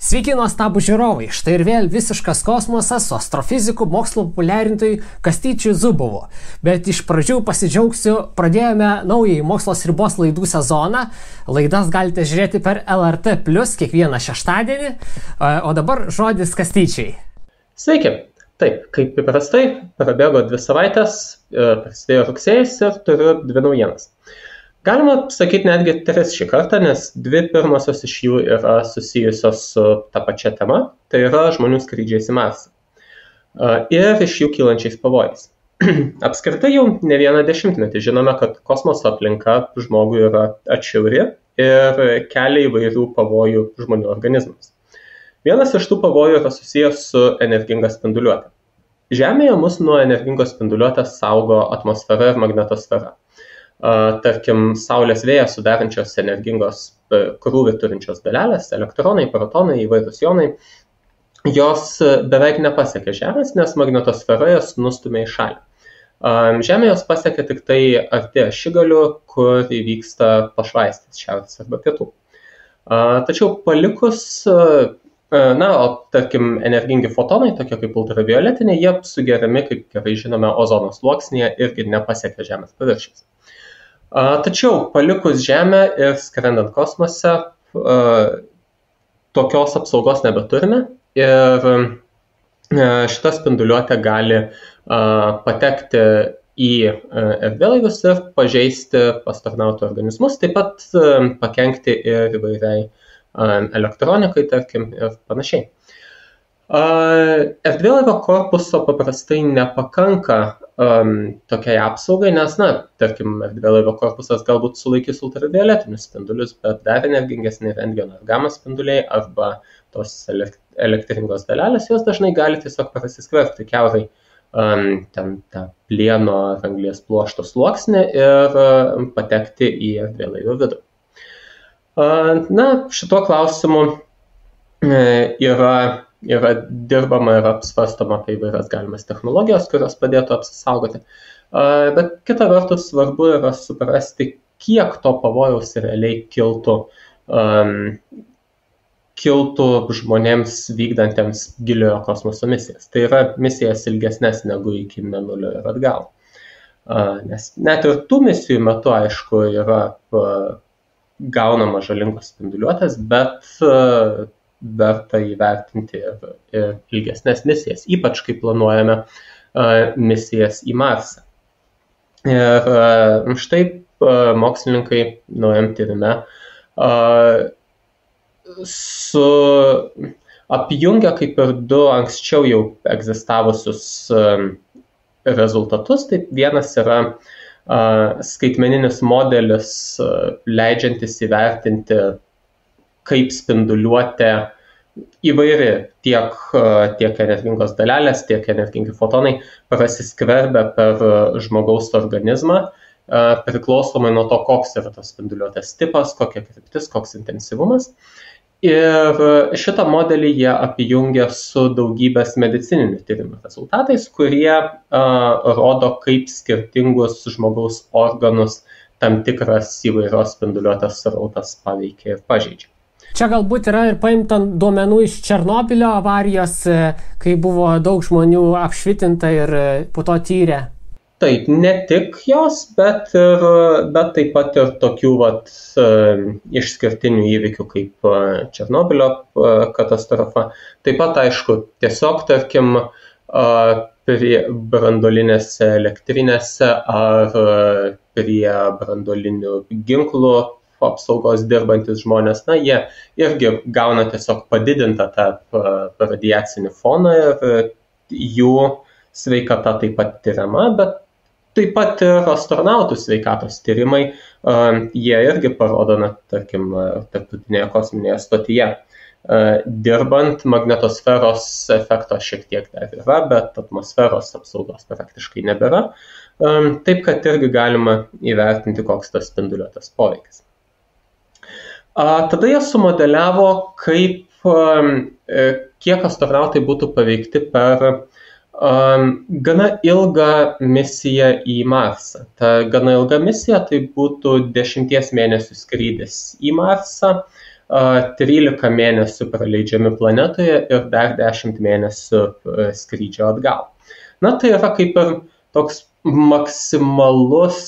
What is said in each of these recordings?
Sveiki nuostabų žiūrovai, štai ir vėl visiškas kosmosas su astrofiziku mokslo populiarintojui Kastyčiu Zubovu. Bet iš pradžių pasidžiaugsiu, pradėjome naująjį mokslos ribos laidų sezoną. Laidas galite žiūrėti per LRT+ kiekvieną šeštadienį, o dabar žodis Kastyčiai. Sveiki, taip, kaip įprastai, prabėgo 2 savaitės, prasidėjo rugsėjis ir turiu 2 naujienas. Galima sakyti netgi 3 šį kartą, nes 2 pirmosios iš jų yra susijusios su ta pačia tema, tai yra žmonių skrydžiais į Marsą ir iš jų kylančiais pavojais. Apskritai jau ne vieną dešimtmetį žinome, kad kosmoso aplinka žmogui yra atšiauri ir kelia įvairių pavojų žmonių organizmams. Vienas iš tų pavojų yra susijęs su energinga spinduliuote. Žemėje mus nuo energingos spinduliuotės saugo atmosfera ir magnetosfera. Tarkim, Saulės vėjas sudarančios energingos krūvį turinčios dalelės, elektronai, protonai, įvairūs jonai, jos beveik nepasiekia Žemės, nes magnetosfera jas nustumia į šalį. Žemė jos pasiekia tik tai arti ašigalių, kur įvyksta pašvaistės šiaurės arba pietų. Tačiau palikus, o tarkim, energingi fotonai, tokie kaip ultravioletiniai, jie sugeriami, kaip gerai žinome, ozono sluoksnyje irgi nepasiekia Žemės paviršiaus. Tačiau palikus Žemę ir skrendant kosmose, tokios apsaugos nebeturime ir šita spinduliuotė gali patekti į erdvėlaivius ir pažeisti astronautų organizmus, taip pat pakenkti ir įvairiai elektronikai, tarkim, ir panašiai. Erdvėlaivio korpuso paprastai nepakanka tokiai apsaugai, nes, tarkim, erdvėlaivio korpusas galbūt sulaikys ultravioletinius spindulius, bet dar energingesni rentgeno ir gama spinduliai arba tos elektringos dalelės, jos dažnai gali tiesiog prasiskverbti kiaurai ten tą plieno ar anglies pluošto sluoksnį ir patekti į erdvėlaivio vidų. Šituo klausimu yra dirbama ir apsvarstoma apie įvairias galimas technologijos, kurios padėtų apsisaugoti. Bet kita vertus svarbu yra suprasti, kiek to pavojaus realiai kiltų žmonėms vykdantiems giliojo kosmoso misijas. Tai yra misijas ilgesnės negu iki Mėnulio ir atgal. Nes net ir tų misijų metu, aišku, yra gaunama žalingos spinduliuotės, bet verta įvertinti ir ilgesnės misijas, ypač kai planuojame misijas į Marsą. Ir štai mokslininkai naujam tyrime apjungia kaip ir 2 anksčiau jau egzistavusius rezultatus. Tai vienas yra skaitmeninis modelis, leidžiantis įvertinti, kaip spinduliuotė įvairi tiek energingos dalelės, tiek energingi fotonai prasiskverbia per žmogaus organizmą, priklausomai nuo to, koks yra tos spinduliuotės tipas, kokia kryptis, koks intensyvumas. Ir šitą modelį jie apjungia su daugybės medicininių tyrimų rezultatais, kurie rodo, kaip skirtingus žmogaus organus tam tikras įvairios spinduliuotės srautas paveikia ir pažeidžia. Čia galbūt yra ir paimta duomenų iš Černobylio avarijos, kai buvo daug žmonių apšvitinta ir po to tyrė. Taip, ne tik jos, bet taip pat ir tokių išskirtinių įvykių kaip Černobylio katastrofa. Taip pat, aišku, tiesiog, tarkim, prie branduolinėse elektrinėse ar prie branduolinių ginklų apsaugos dirbantis žmonės, jie irgi gauna tiesiog padidintą tą radiacinį foną ir jų sveikata taip pat tyriama, bet taip pat ir astronautų sveikatos tyrimai, jie irgi parodo, tarkim, tarptautinėje kosminėje stotyje. Dirbant, magnetosferos efekto šiek tiek dar yra, bet atmosferos apsaugos praktiškai nebėra. Taip, kad irgi galima įvertinti, koks tas spinduliuotės poveikis. Tada jie sumodeliavo, kiek astronautai būtų paveikti per gana ilgą misiją į Marsą. Ta gana ilga misija tai būtų 10 mėnesių skrydis į Marsą, 13 mėnesių praleidžiami planetoje ir dar 10 mėnesių skrydžio atgal. Na, tai yra kaip ir toks maksimalus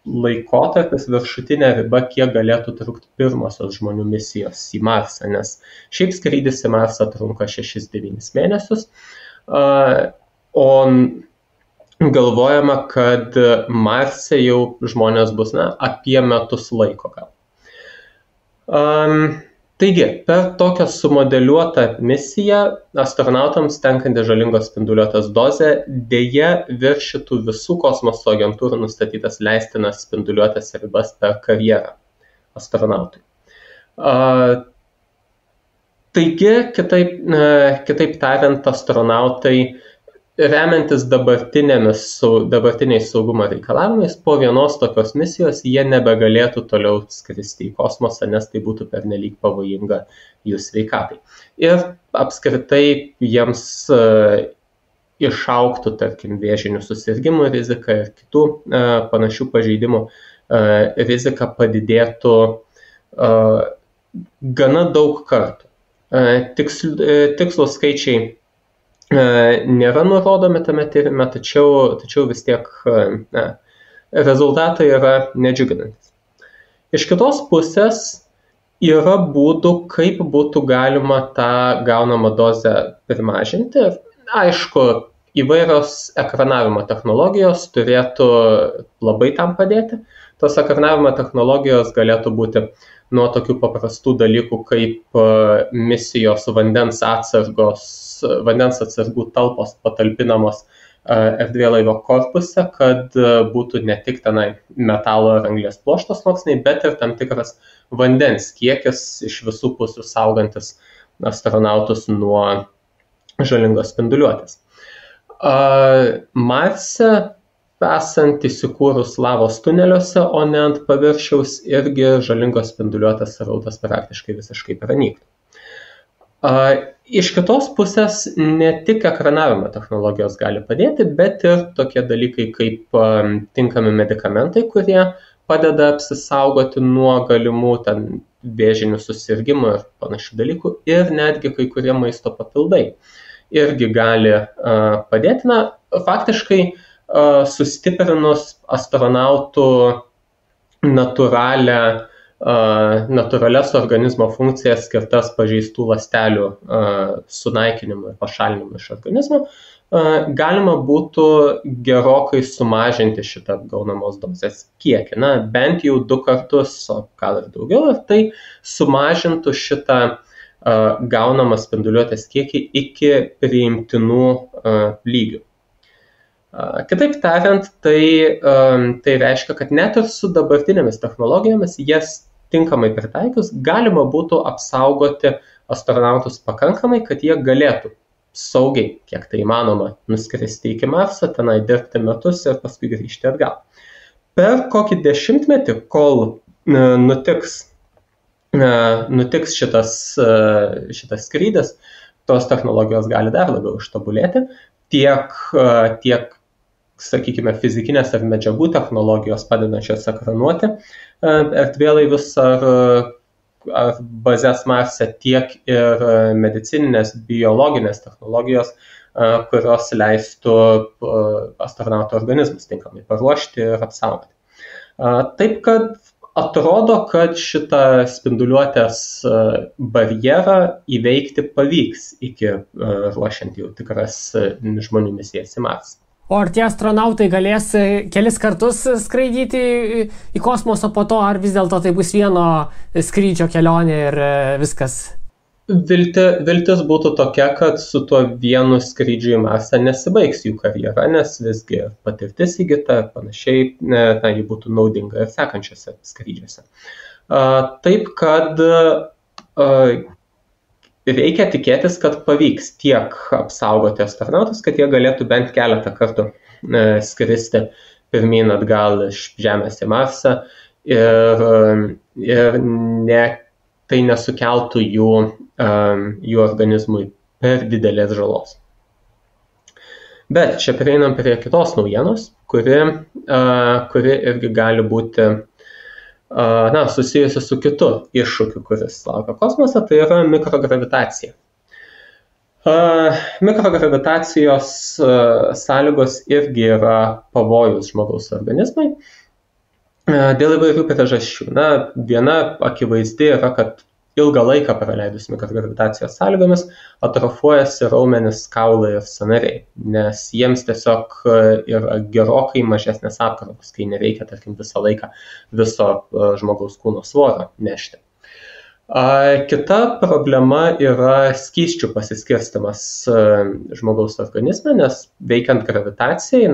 laikotarpis, viršutinė riba, kiek galėtų trukti pirmosios žmonių misijos į Marsą, nes šiaip skrydis į Marsą trunka 6-9 mėnesius, o galvojama, kad Marse jau žmonės bus apie metus laiko gal. Taigi, per tokią sumodeliuotą misiją astronautams tenkanti žalingos spinduliuotės dozė dėja viršytų visų kosmoso agentūrų nustatytas leistinas spinduliuotės ribas per karjerą astronautui. Taigi, kitaip tariant, astronautai remiantis dabartiniais saugumo reikalavimais, po vienos tokios misijos jie nebegalėtų toliau skristi į kosmosą, nes tai būtų pernelyg pavojinga jų sveikatai. Ir apskritai jiems išaugtų, tarkim, vėžinių susirgimų rizika ir kitų panašių pažeidimų rizika padidėtų gana daug kartų. Tikslūs skaičiai nėra nurodomi tame tyrime, tačiau vis tiek rezultatai yra nedžiuginantis. Iš kitos pusės yra būdų, kaip būtų galima tą gaunamą dozę primažinti. Aišku, įvairios ekranavimo technologijos turėtų labai tam padėti. Tos ekranavimo technologijos galėtų būti nuo tokių paprastų dalykų kaip misijos vandens atsargų talpos patalpinamos erdvėlaivio korpuse, kad būtų ne tik tenai metalo ir anglies pluošto sluoksniai, bet ir tam tikras vandens kiekis iš visų pusių saugantis astronautus nuo žalingos spinduliuotės. Marse esant įsikūrus lavos tuneliuose, o ne ant paviršiaus, irgi žalingos spinduliuotės srautas praktiškai visiškai pranyktų. Iš kitos pusės ne tik ekranavimo technologijos gali padėti, bet ir tokie dalykai kaip tinkami medikamentai, kurie padeda apsisaugoti nuo galimų vėžinių susirgymų ir panašių dalykų, ir netgi kai kurie maisto papildai irgi gali padėti. Na, faktiškai sustiprinus astronautų natūralias organizmo funkcijas skirtas pažeistų ląstelių sunaikinimui ir pašalinimui iš organizmo, galima būtų gerokai sumažinti šitą gaunamos dozės kiekį. Na, bent jau 2 kartus, o gal ir daugiau, ir tai sumažintų šitą gaunamą spinduliuotės kiekį iki priimtinų lygių. Kitaip tariant, tai reiškia, kad net ir su dabartinėmis technologijomis, jas tinkamai pritaikius, galima būtų apsaugoti astronautus pakankamai, kad jie galėtų saugiai, kiek tai įmanoma, nuskristi iki Marso, tenai dirbti metus ir paskui grįžti atgal. Per kokį 10 metį, kol nutiks šitas skrydis, tos technologijos gali dar labiau ištobulėti, tiek sakykime, fizikinės ar medžiagų technologijos padedančios ekranuoti erdvėlaivius ar bazės Marse, tiek ir medicininės, biologinės technologijos, kurios leistų astronautų organizmus tinkamai paruošti ir apsaugoti. Taip, kad atrodo, kad šitą spinduliuotės barjerą įveikti pavyks iki ruošiant jau tikras žmonių misijas į Marsą. O ar tie astronautai galės kelis kartus skraidyti į kosmosą po to, ar vis dėlto tai bus vieno skrydžio kelionė ir viskas? Viltis būtų tokia, kad su tuo vienu skrydžiu į Marsą nesibaigs jų karjera, nes visgi patirtis įgyta ir panašiai, ji būtų naudinga ir sekančiose skrydžiuose. Taip, kad reikia tikėtis, kad pavyks tiek apsaugoti astronautus, kad jie galėtų bent keletą kartų skristi pirmyn atgal iš Žemės į Marsą ir tai nesukeltų jų organizmui per didelės žalos. Bet čia prieinam prie kitos naujienos, kuri irgi gali būti susijusi su kitu iššūkiu, kuris laukia kosmose, tai yra mikrogravitacija. Mikrogravitacijos sąlygos irgi yra pavojus žmogaus organizmai dėl įvairių priežasčių. Viena akivaizdi yra, kad ilgą laiką praleidus mikrogravitacijos sąlygomis atrofuojasi raumenys, kaulai ir sąnariai, nes jiems tiesiog yra gerokai mažesnės apkrovos, kai nereikia, tarkim, visą laiką viso žmogaus kūno svorio nešti. Kita problema yra skysčių pasiskirstimas žmogaus organizme, nes veikiant gravitacijai,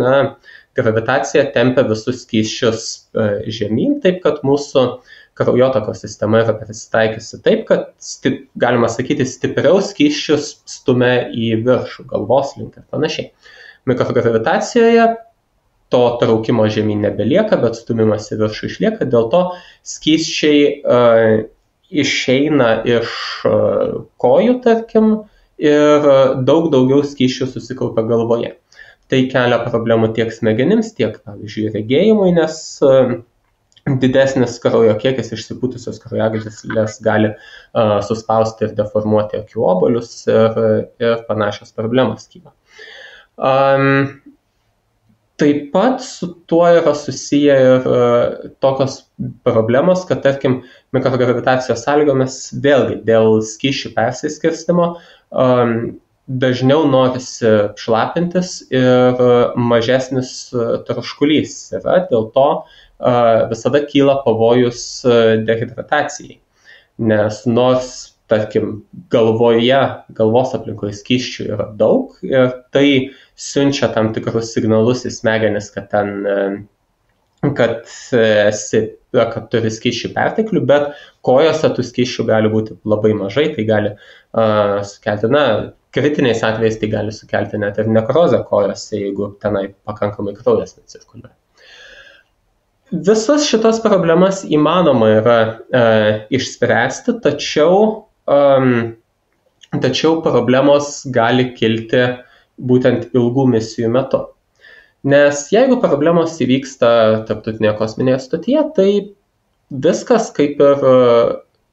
gravitacija tempia visus skysčius žemyn, taip kad mūsų kraujotakos sistema yra prisitaikiusi taip, kad, galima sakyti, stipriau skysčius stumia į viršų, galvos link ir panašiai. Mikrogravitacijoje to traukimo žemyn nebelieka, bet stumimas į viršų išlieka, dėl to skysčiai išeina iš kojų, tarkim, ir daug daugiau skysčių susikaupia galvoje. Tai kelia problemų tiek smegenims, tiek, pavyzdžiui, regėjimui, nes didesnis kraujo kiekis išsipūtusios kraujagyslės gali suspausti ir deformuoti akių obuolius ir panašios problemos kyla. Taip pat su tuo yra susiję ir tokios problemos, kad, tarkim, mikrogravitacijos sąlygomis vėlgi dėl skysčių persiskirstimo dažniau norisi šlapintis ir mažesnis troškulys yra, dėl to visada kyla pavojus dehidratacijai, nes nors, tarkim, galvos aplinkoje skysčių yra daug ir tai siunčia tam tikrus signalus į smegenis, kad turi skysčių perteklių, bet kojose tų skysčių gali būti labai mažai, tai gali sukelti, kritiniais atvejais tai gali sukelti net ir nekrozę kojose, jeigu tenai pakankamai kraujas necirkuliuoja. Visas šitas problemas įmanoma yra išspręsti, tačiau problemos gali kilti būtent ilgų misijų metu. Nes jeigu problemos įvyksta tarptautinėje kosminėje stotyje, tai viskas kaip ir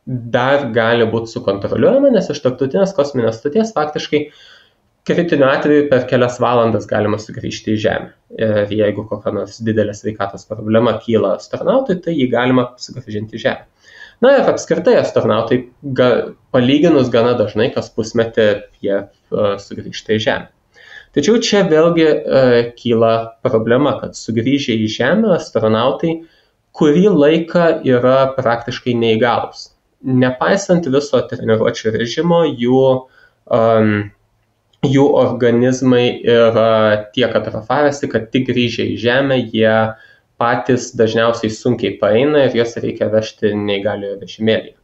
dar gali būti sukontroliuojama, nes iš tarptautinės kosminės stoties faktiškai kritiniu atveju per kelias valandas galima sugrįžti į Žemę. Ir jeigu kokia nors didelė sveikatos problema kyla astronautui, tai jį galima sugrąžinti į Žemę. Ir apskritai astronautai palyginus gana dažnai, kas pusmetį jie sugrįžta į Žemę. Tačiau čia vėlgi kyla problema, kad sugrįžę į Žemę astronautai kurį laiką yra praktiškai neįgalūs. Nepaisant viso treniruočių režimo, jų organizmai yra tiek atrofavęsi, kad tik grįžę į Žemę jie patys dažniausiai sunkiai paeina ir juos reikia vežti neįgaliojo vežimėlyje.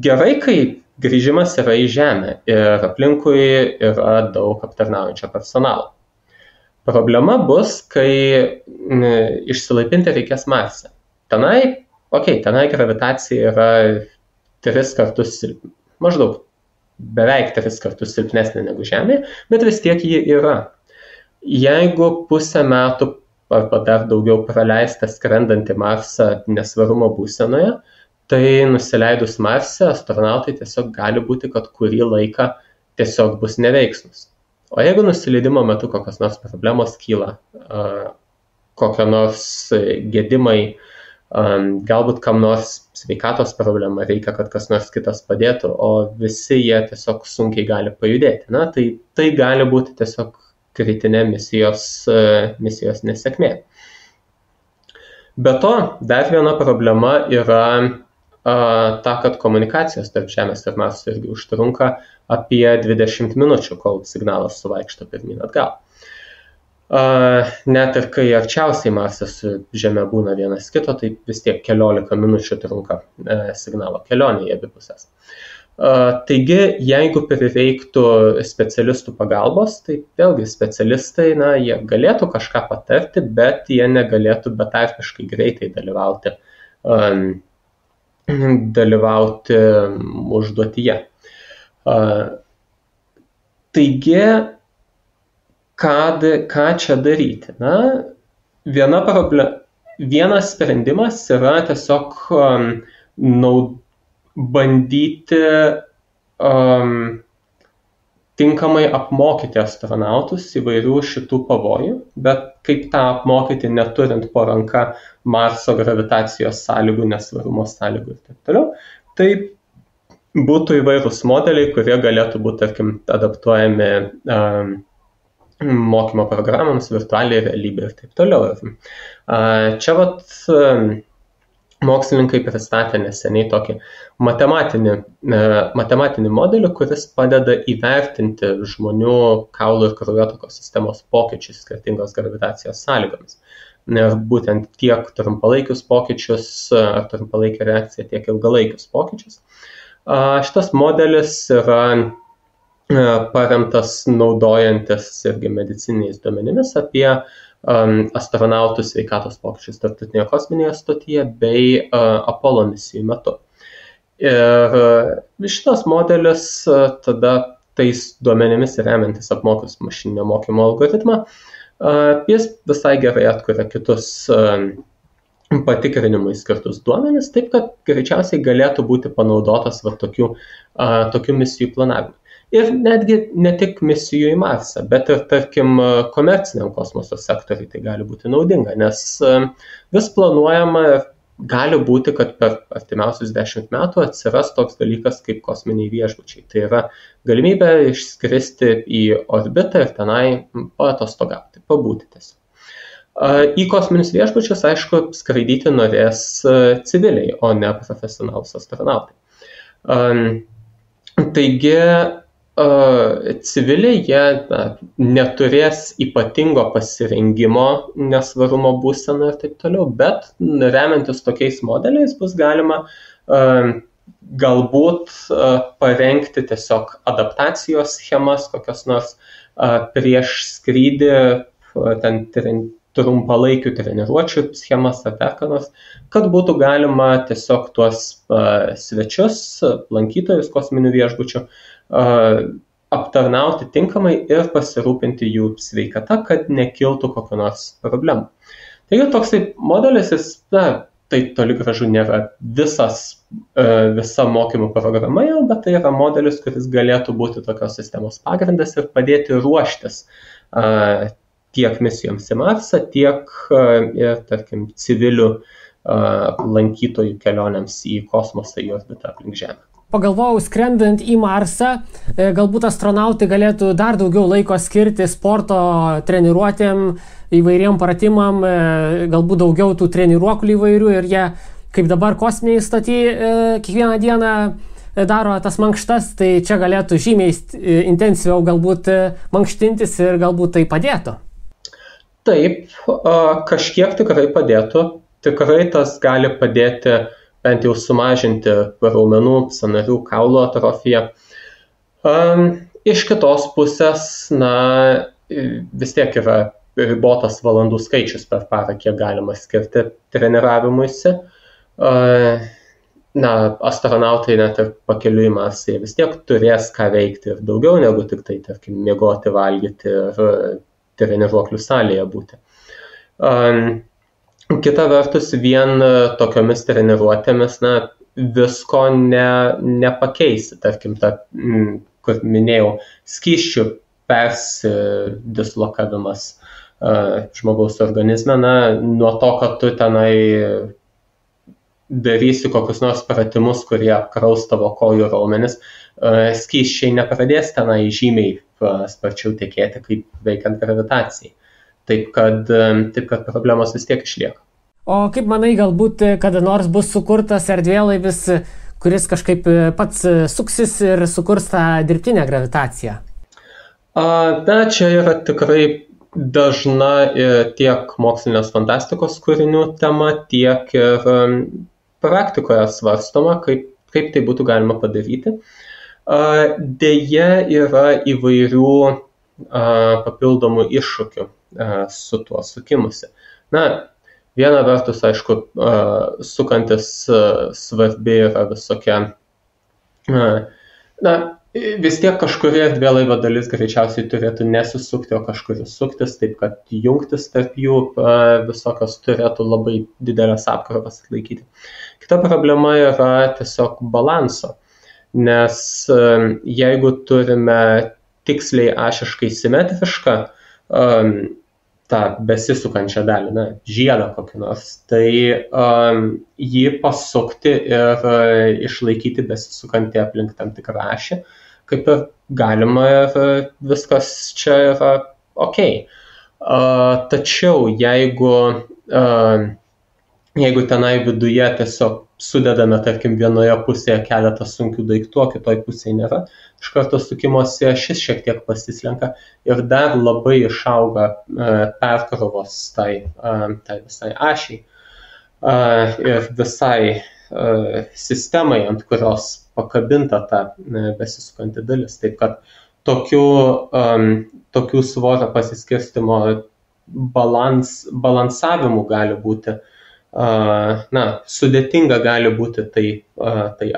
Gerai, kai grįžimas yra į Žemę ir aplinkui yra daug aptarnaujančio personalo. Problema bus, kai išsilaipinti reikės Marse. Tenai gravitacija yra 3 kartus maždaug beveik 3 kartus silpnesnė negu Žemėje, bet vis tiek ji yra. Jeigu pusę metų arba dar daugiau praleista skrendant į Marsą nesvarumo būsenoje, tai nusileidus Marse astronautai tiesiog gali būti, kad kurį laiką tiesiog bus neveiksnus. O jeigu nusileidimo metu kokios nors problemos kyla, kokio nors gedimai, galbūt kam nors sveikatos problema, reikia, kad kas nors kitas padėtų, o visi jie tiesiog sunkiai gali pajudėti. Tai gali būti tiesiog kritinė misijos nesėkmė. Be to, dar viena problema yra ta, kad komunikacijos tarp Žemės ir Marso irgi užtrunka apie 20 minučių, kol signalas suvaikšto pirmyn atgal. Net ir kai arčiausiai Marsas su Žeme būna vienas kito, tai vis tiek 15 minučių trunka signalo kelionė į abi pusės. Taigi, jeigu prireiktų specialistų pagalbos, tai vėlgi specialistai, jie galėtų kažką patarti, bet jie negalėtų betarpiškai greitai dalyvauti užduotyje. Taigi, ką čia daryti? vienas sprendimas yra tiesiog bandyti tinkamai apmokyti astronautus įvairių šitų pavojų, bet kaip tą apmokyti neturint po ranka Marso gravitacijos sąlygų, nesvarumo sąlygų ir taip toliau. Tai būtų įvairūs modeliai, kurie galėtų būti, tarkim, adaptuojami mokymo programams, virtualiai realybė ir taip toliau. Čia mokslininkai pristatė neseniai tokį matematinį modelį, kuris padeda įvertinti žmonių kaulų ir kraujotakos sistemos pokyčius skirtingos gravitacijos sąlygomis. Ir būtent tiek trumpalaikius pokyčius ar trumpalaikę reakciją, tiek ilgalaikius pokyčius. Šitas modelis yra paremtas naudojantis irgi medicininiais duomenimis apie astronautų sveikatos pokyčius Tarptautinėje kosminėje stotyje bei Apollo misijų metu. Ir šitas modelis tada tais duomenimis remiantis apmokius mašininio mokymo algoritmą, jis visai gerai atkuria kitus patikrinimui skirtus duomenis, taip kad greičiausiai galėtų būti panaudotas tokių misijų planavimui. Ir netgi ne tik misijų į Marsą, bet ir, tarkim, komerciniam kosmoso sektoriui tai gali būti naudinga, nes vis planuojama ir gali būti, kad per artimiausius 10 metų atsiras toks dalykas kaip kosminiai viešbučiai. Tai yra galimybė išskristi į orbitą ir tenai paatostogauti, pabūti tiesiog. Į kosminius viešbučius, aišku, skraidyti norės civiliai, o ne profesionalūs astronautai. Taigi, civiliai jie neturės ypatingo pasirengimo nesvarumo būsena ir taip toliau, bet remiantis tokiais modeliais bus galima galbūt parengti tiesiog adaptacijos schemas, kokias nors prieš skrydį, ten trumpalaikių treniruočių schemas ar dar ką nors, kad būtų galima tiesiog tuos svečius, lankytojus kosminių viešbučių aptarnauti tinkamai ir pasirūpinti jų sveikata, kad nekiltų kokio nors problemų. Taigi toksai modelis, tai toli gražu nėra visa mokymų programa jau, bet tai yra modelis, kuris galėtų būti tokios sistemos pagrindas ir padėti ruoštis tiek misijoms į Marsą, tiek ir, tarkim, civilių lankytojų kelionėms į kosmosą, į orbitą aplink Žemę. Pagalvojau, skrendant į Marsą, galbūt astronautai galėtų dar daugiau laiko skirti sporto treniruotėm, įvairiem pratimam, galbūt daugiau tų treniruoklių įvairių ir jie, kaip dabar kosminiai stoty, kiekvieną dieną daro tas mankštas, tai čia galėtų žymiai intensyviau galbūt mankštintis ir galbūt tai padėtų. Taip, kažkiek tikrai padėtų. Tikrai tas gali padėti bent jau sumažinti raumenų, sąnarių, kaulo atrofiją. Iš kitos pusės, vis tiek yra ribotas valandų skaičius per parą, kiek galima skirti treniravimuisi. Astronautai net ir pakeliui į Marsą vis tiek turės ką veikti ir daugiau negu tik tai, tarkim, miegoti, valgyti ir treniruoklių salėje būti. Kita vertus, vien tokiomis treniruotėmis visko nepakeisi. Tarkim, kur minėjau, skysčių persidislokavimas žmogaus organizme, nuo to, kad tu tenai darysi kokius nors pratimus, kurie apkraus tavo kojų raumenis, skysčiai nepradės tenai žymiai sparčiau tekėti, kaip veikiant gravitacijai. Taip kad problemos vis tiek išlieka. O kaip manai, galbūt kada nors bus sukurtas erdvėlaivis, kuris kažkaip pats suksis ir sukurs tą dirbtinę gravitaciją? Čia yra tikrai dažna tiek mokslinės fantastikos kūrinių tema, tiek ir praktikoje svarstoma, kaip tai būtų galima padaryti. Deja, yra įvairių papildomų iššūkių su tuo sukimusi. Viena vertus, aišku, sukantis svarbi yra visokia, vis tiek kažkuri erdvėlaivio dalis greičiausiai turėtų nesisukti, o kažkuri suktis, taip kad jungtis tarp jų visokios turėtų labai didelės apkrovas atlaikyti. Kita problema yra tiesiog balanso, nes jeigu turime tiksliai ašiškai simetrišką tą besisukančią dalį, žiedą kokį nors, tai jį pasukti ir išlaikyti besisukantį aplink tam tikrą ašį, kaip ir galima ir viskas čia yra ok. Tačiau jeigu tenai viduje tiesiog sudedame, tarkim, vienoje pusėje keletą sunkių daiktų, o kitoj pusėje nėra, iš karto sukimosi ašis šiek tiek pasislenka ir dar labai išauga perkrovos tai visai ašiai ir visai sistemai, ant kurios pakabinta ta besisukanti dalis. Taip kad tokių svorio pasiskirstimo balansavimų gali būti, sudėtinga gali būti tai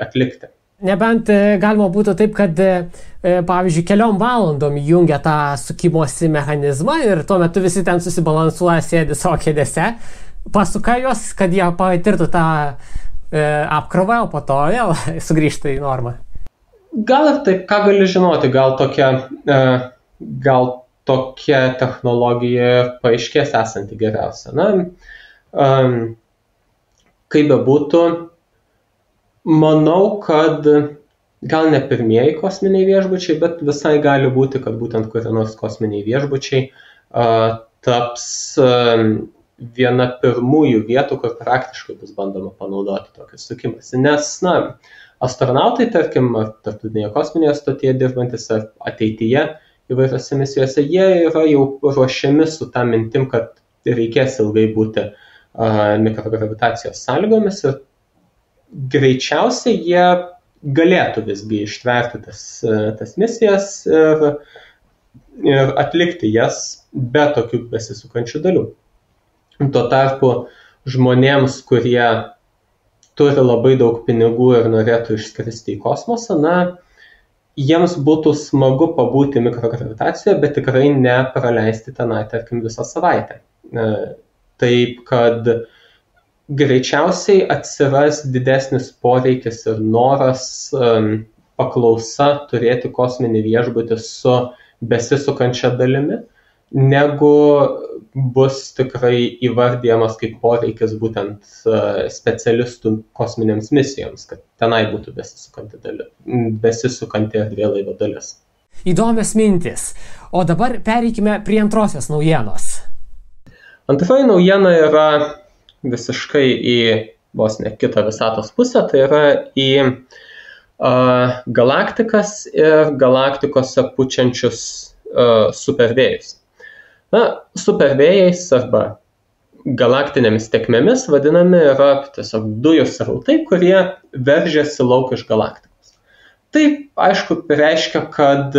atlikti. Nebent galima būtų taip, kad, pavyzdžiui, keliom valandom jungia tą sukimosi mechanizmą ir tuo metu visi ten susibalansuoja, sėdi savo kėdėse, pasuka juos, kad jie patirtų tą apkrovą, o po to vėl sugrįžta į normą. Gal ir taip, ką gali žinoti, gal tokia technologija paaiškės esanti geriausia. Kaip bebūtų, manau, kad gal ne pirmieji kosminiai viešbučiai, bet visai gali būti, kad būtent kurie nors kosminiai viešbučiai taps viena pirmųjų vietų, kur praktiškai bus bandoma panaudoti tokį sukimąsi. Nes, astronautai, tarkim, tarptautinėje kosminėje stotyje dirbantis ar ateityje įvairiose misijose, jie yra jau ruošiami su tą mintim, kad reikės ilgai būti mikrogravitacijos sąlygomis ir greičiausiai jie galėtų visgi ištverti tas misijas ir atlikti jas be tokių besisukančių dalių. Tuo tarpu žmonėms, kurie turi labai daug pinigų ir norėtų išskristi į kosmosą, jiems būtų smagu pabūti mikrogravitacijoje, bet tikrai nepraleisti tenai, tarkim, visą savaitę. Taip, kad greičiausiai atsiras didesnis poreikis ir noras paklausa turėti kosminį viešbutį su besisukančia dalimi, negu bus tikrai įvardyjamas kaip poreikis būtent specialistų kosminėms misijoms, kad tenai būtų besisukanti erdvėlaivio dalis. Įdomios mintis. O dabar pereikime prie antrosios naujienos. Antroji naujiena yra visiškai į vos ne kitą visatos pusę, tai yra į galaktikas ir galaktikose pučiančius supervėjus. Supervėjais arba galaktinėmis tėkmėmis vadinami yra tiesiog dujų srautai, kurie veržiasi lauk iš galaktikos. Tai, aišku, reiškia, kad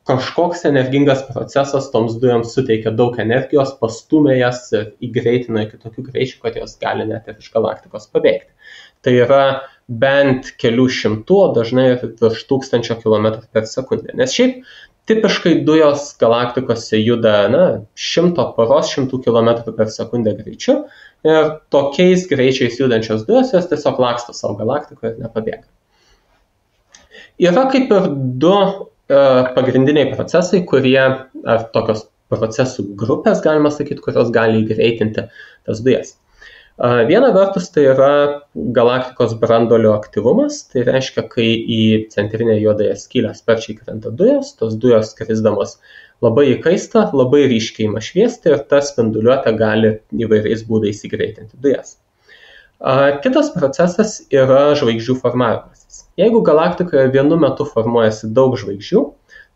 kažkoks energingas procesas toms dujoms suteikia daug energijos, pastumia jas ir įgreitina iki tokių greičių, kad jos gali net ir iš galaktikos pabėgti. Tai yra bent kelių šimtų, dažnai virš 1000 km per sekundę. Nes šiaip tipiškai dujos galaktikose juda 100 km per sekundę greičiu ir tokiais greičiais judančios dujos jos tiesiog laksto savo galaktikoje ir nepabėga. Yra kaip ir du pagrindiniai procesai, kurie, ar tokios procesų grupės, galima sakyti, kurios gali įgreitinti tas dujas. Viena vertus tai yra galaktikos branduolio aktyvumas, tai reiškia, kai į centrinę juodąją skylę sparčiai krenta dujos, tos dujos krisdamos labai įkaista, labai ryškiai ima šviesti ir ta spinduliuotė gali įvairiais būdais įgreitinti dujas. Kitas procesas yra žvaigždžių formavimasis. Jeigu galaktikoje vienu metu formuojasi daug žvaigždžių,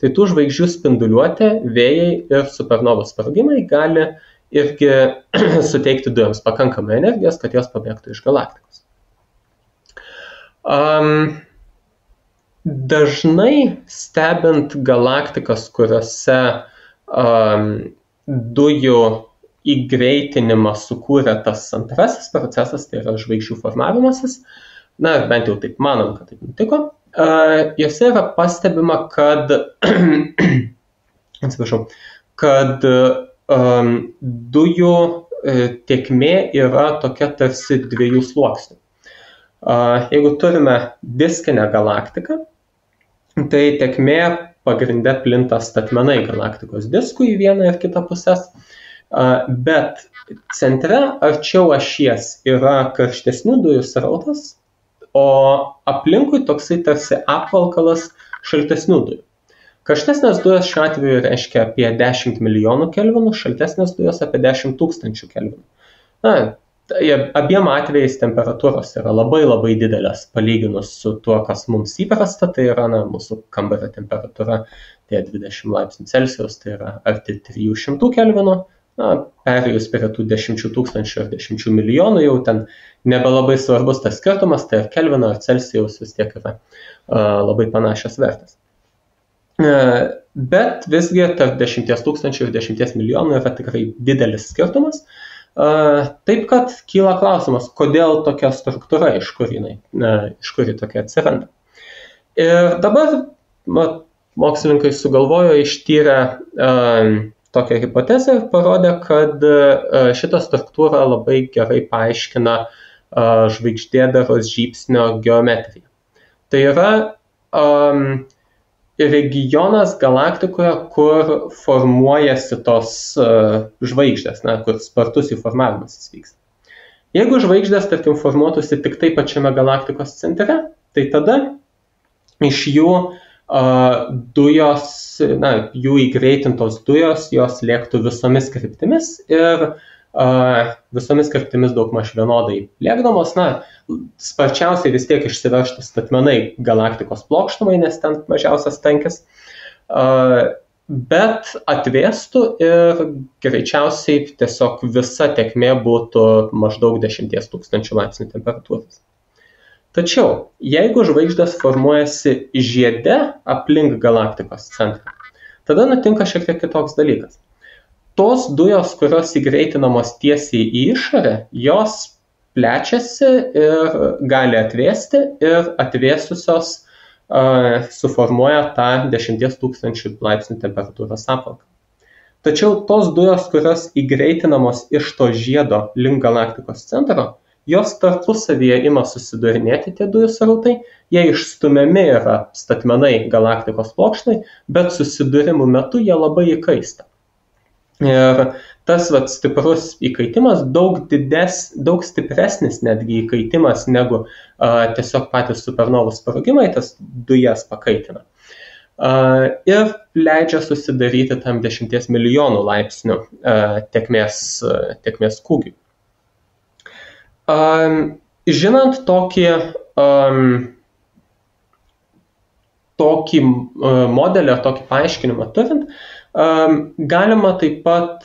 tai tų žvaigždžių spinduliuotė, vėjai ir supernovų sprogimai gali irgi suteikti dujoms pakankamai energijos, kad jos pabėgtų iš galaktikos. Dažnai stebint galaktikas, kuriuose dujų įgreitinimą sukūrė tas antrasis procesas, tai yra žvaigždžių formavimasis, na, bent jau taip manom, kad taip nutiko, jose yra pastebima, kad, atsiprašau, kad dujų tėkmė yra tokia tarsi dviejų sluoksnių. Jeigu turime diskinę galaktiką, tai tėkmė pagrinde plinta statmenai galaktikos diskų į vieną ir kitą pusės, bet centre arčiau ašies yra karštesnių dujų srautas, o aplinkui toksai tarsi apvalkalas šaltesnių dujų. Karštesnės dujos šiuo atveju reiškia apie 10 milijonų kelvinų, šaltesnės dujos apie 10 tūkstančių kelvinų. Na, abiem atvejais temperatūros yra labai labai didelės palyginus su tuo, kas mums įprasta, tai yra mūsų kambario temperatūra, tai 20 laipsnių Celsijaus, tai yra arti 300 kelvinų, perėjus prie tų 10 tūkstančių ar 10 milijonų, jau ten nebelabai svarbus tas skirtumas, tai ar kelvino ar Celsijaus vis tiek yra labai panašios vertės. Bet visgi tarp 10 tūkstančių ir 10 milijonų yra tikrai didelis skirtumas. Taip, kad kyla klausimas, kodėl tokia struktūra, iš kur ji tokia atsiranda. Ir dabar mokslininkai sugalvojo, ištyrę tokią hipotezę ir parodė, kad šitą struktūrą labai gerai paaiškina žvaigždėdaros žybsnio geometrija. Tai yra regionas galaktikoje, kur formuojasi tos žvaigždės, kur spartus jų formavimasis vyksta. Jeigu žvaigždės, tarkim, formuotųsi tik tai pačiame galaktikos centre, tai tada iš jų dujos, jų įgreitintos dujos, jos lėktų visomis kryptimis ir visomis kryptimis daugmaž vienodai lėkdamos, sparčiausiai vis tiek išsiveržtų statmenai galaktikos plokštumai, nes ten mažiausias tankis, bet atvėstų ir greičiausiai tiesiog visa tėkmė būtų maždaug 10 tūkstančių laipsnių temperatūros. Tačiau, jeigu žvaigždės formuojasi žiede aplink galaktikos centrą, tada nutinka šiek tiek kitoks dalykas. Tos dujos, kurios įgreitinamos tiesiai į išorę, jos plečiasi ir gali atvėsti ir atvėsusios suformuoja tą 10 tūkstančių laipsnių temperatūros apvalkalą. Tačiau tos dujos, kurios įgreitinamos iš to žiedo link galaktikos centro, jos tarpusavyje ima susidurinėti tie dujų srautai, jie išstumiami yra statmenai galaktikos plokštai, bet susidūrimų metu jie labai įkaista. Ir tas stiprus įkaitimas daug stipresnis netgi įkaitimas negu tiesiog patys supernovų sprogimai, tas dujas pakaitina. Ir leidžia susidaryti tam 10 milijonų laipsnių tėkmės kūgiui. Žinant tokį modelį ar tokį paaiškinimą turint, galima taip pat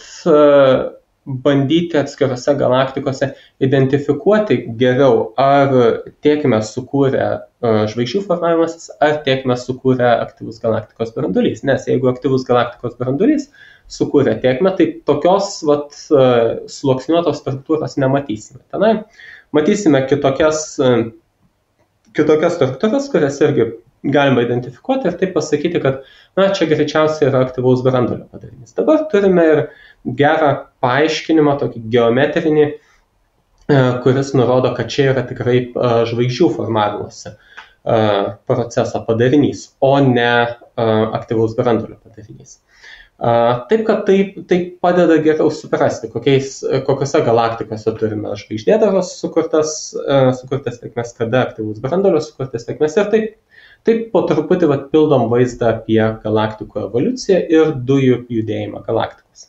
bandyti atskirose galaktikose identifikuoti geriau, ar tėkmę sukūrė žvaigždžių formavimasis, ar tėkmę sukūrė aktyvus galaktikos branduolys. Nes jeigu aktyvus galaktikos branduolys sukūrė tėkmę, tai tokios sluoksniuotos struktūros nematysime. Tenai matysime kitokias struktūras, kurias irgi galima identifikuoti ir taip pasakyti, kad čia greičiausiai yra aktyvaus branduolio padarinys. Dabar turime ir gerą paaiškinimą, tokį geometrinį, kuris nurodo, kad čia yra tikrai žvaigždžių formavimosi proceso padarinys, o ne aktyvaus branduolio padarinys. Taip, kad tai padeda geriau suprasti, kokiose galaktikose turime žvaigždėdaros sukurtas tėkmes, kada aktyvaus branduolio sukurtas tėkmes ir taip po truputį pildom vaizdą apie galaktikų evoliuciją ir dujų judėjimą galaktikose.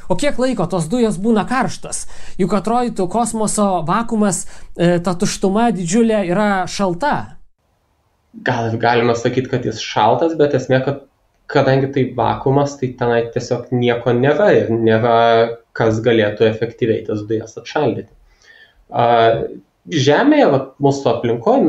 O kiek laiko tos dujos būna karštas? Juk atrodytų kosmoso vakuumas, ta tuštuma didžiulė yra šalta. Gal galima sakyti, kad jis šaltas, bet esmė, kad kadangi tai vakuumas, tai tenai tiesiog nieko nėra ir nėra, kas galėtų efektyviai tas dujas atšaldyti. Žemėje, mūsų aplinkoje,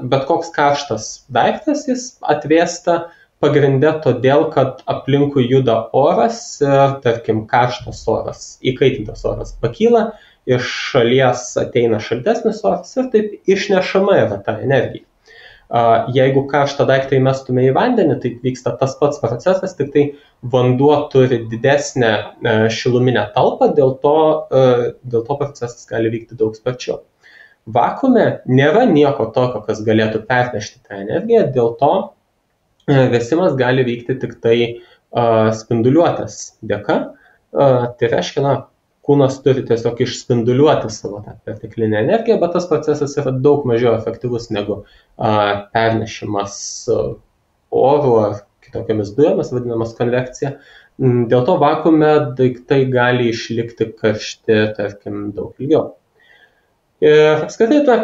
bet koks karštas daiktas, jis atvėsta pagrinde todėl, kad aplinkui juda oras ir, tarkim, karštas oras, įkaitintas oras pakyla iš šalies ateina šaltesnis oras ir taip išnešama yra ta energija. Jeigu karštą daiktą įmestume į vandenį, tai vyksta tas pats procesas, tik tai vanduo turi didesnę šiluminę talpą, dėl to procesas gali vykti daug sparčiau. Vakuume nėra nieko tokio, kas galėtų pernešti tą energiją, dėl to vėsimas gali vykti tik tai spinduliuotės dėka. Tai reiškia, kūnas turi tiesiog išspinduliuoti savo tą perteklinę energiją, bet tas procesas yra daug mažiau efektyvus negu pernešimas oru ar kitokiamis dujomis, vadinamas konvekcija. Dėl to vakuume daiktai gali išlikti karšti, tarkim, daug ilgiau. Ir apskritai,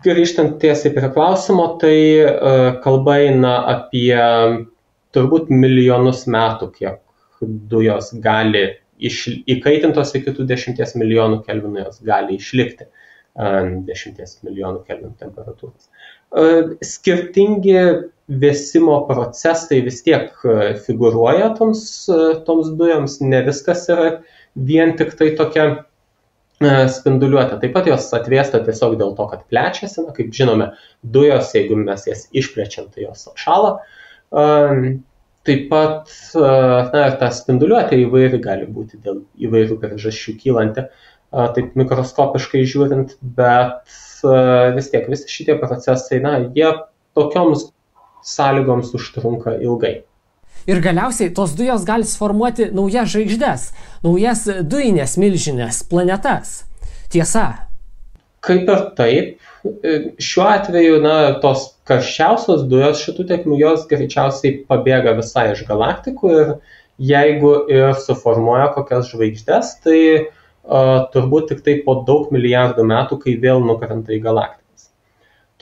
grįžtant tiesiai prie klausimo, tai kalba eina apie turbūt milijonus metų, kiek dujos gali įkaitintos iki tų 10 milijonų kelvinų, jos gali išlikti 10 milijonų kelvinų temperatūros. Skirtingi vėsimo procesai vis tiek figūruoja toms dujoms, ne viskas yra vien tik tai tokia spinduliuotė. Taip pat jos atvėsta tiesiog dėl to, kad plečiasi, kaip žinome, dujos, jeigu mes jas išplečiam, tai jos atšąla. Taip pat ta spinduliuotė įvairi gali būti dėl įvairių priežasčių kylanti, taip mikroskopiškai žiūrint, bet vis tiek visi šitie procesai, jie tokioms sąlygoms užtrunka ilgai. Ir galiausiai tos dujos gali sformuoti naujas žvaigždes, naujas dujinės milžinės, planetas. Tiesa. Kaip ir taip, šiuo atveju, tos karščiausios dujos šitų tėkmių, jos greičiausiai pabėga visai iš galaktikų ir jeigu ir suformuoja kokias žvaigždes, tai turbūt tik tai po daug milijardų metų, kai vėl nukrenta į galaktikas.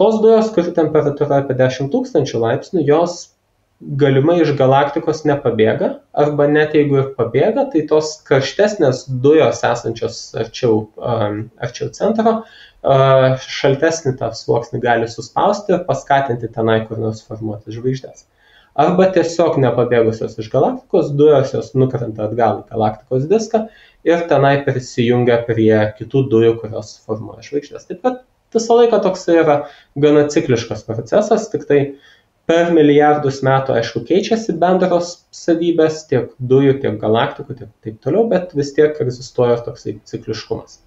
Tos dujos, kur temperatūra apie 10 000 laipsnių, jos galimai iš galaktikos nepabėga, arba net jeigu ir pabėga, tai tos karštesnės dujos esančios arčiau centro, šaltesnį tą sluoksnį gali suspausti ir paskatinti tenai kur nors formuoti žvaigždės. Arba tiesiog nepabėgusios iš galaktikos dujos, jos nukrenta atgal į galaktikos diską ir tenai prisijungia prie kitų dujų, kurios formuoja žvaigždės. Taip pat visą laiką toks yra gana cikliškas procesas, tik tai per milijardus metų, aišku, keičiasi bendros savybės tiek dujų, tiek galaktikų, tiek taip toliau, bet vis tiek egzistuoja toksai cikliškumas.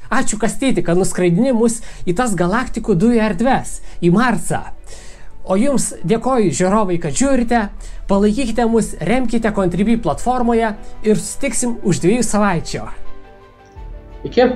Ačiū, Kastyti, kad nuskraidini mus į tas galaktikų dujų erdves, į Marsą. O jums dėkoju, žiūrovai, kad žiūrite, palaikykite mus, remkite Contribui platformoje ir susitiksim už 2 savaičių. Iki.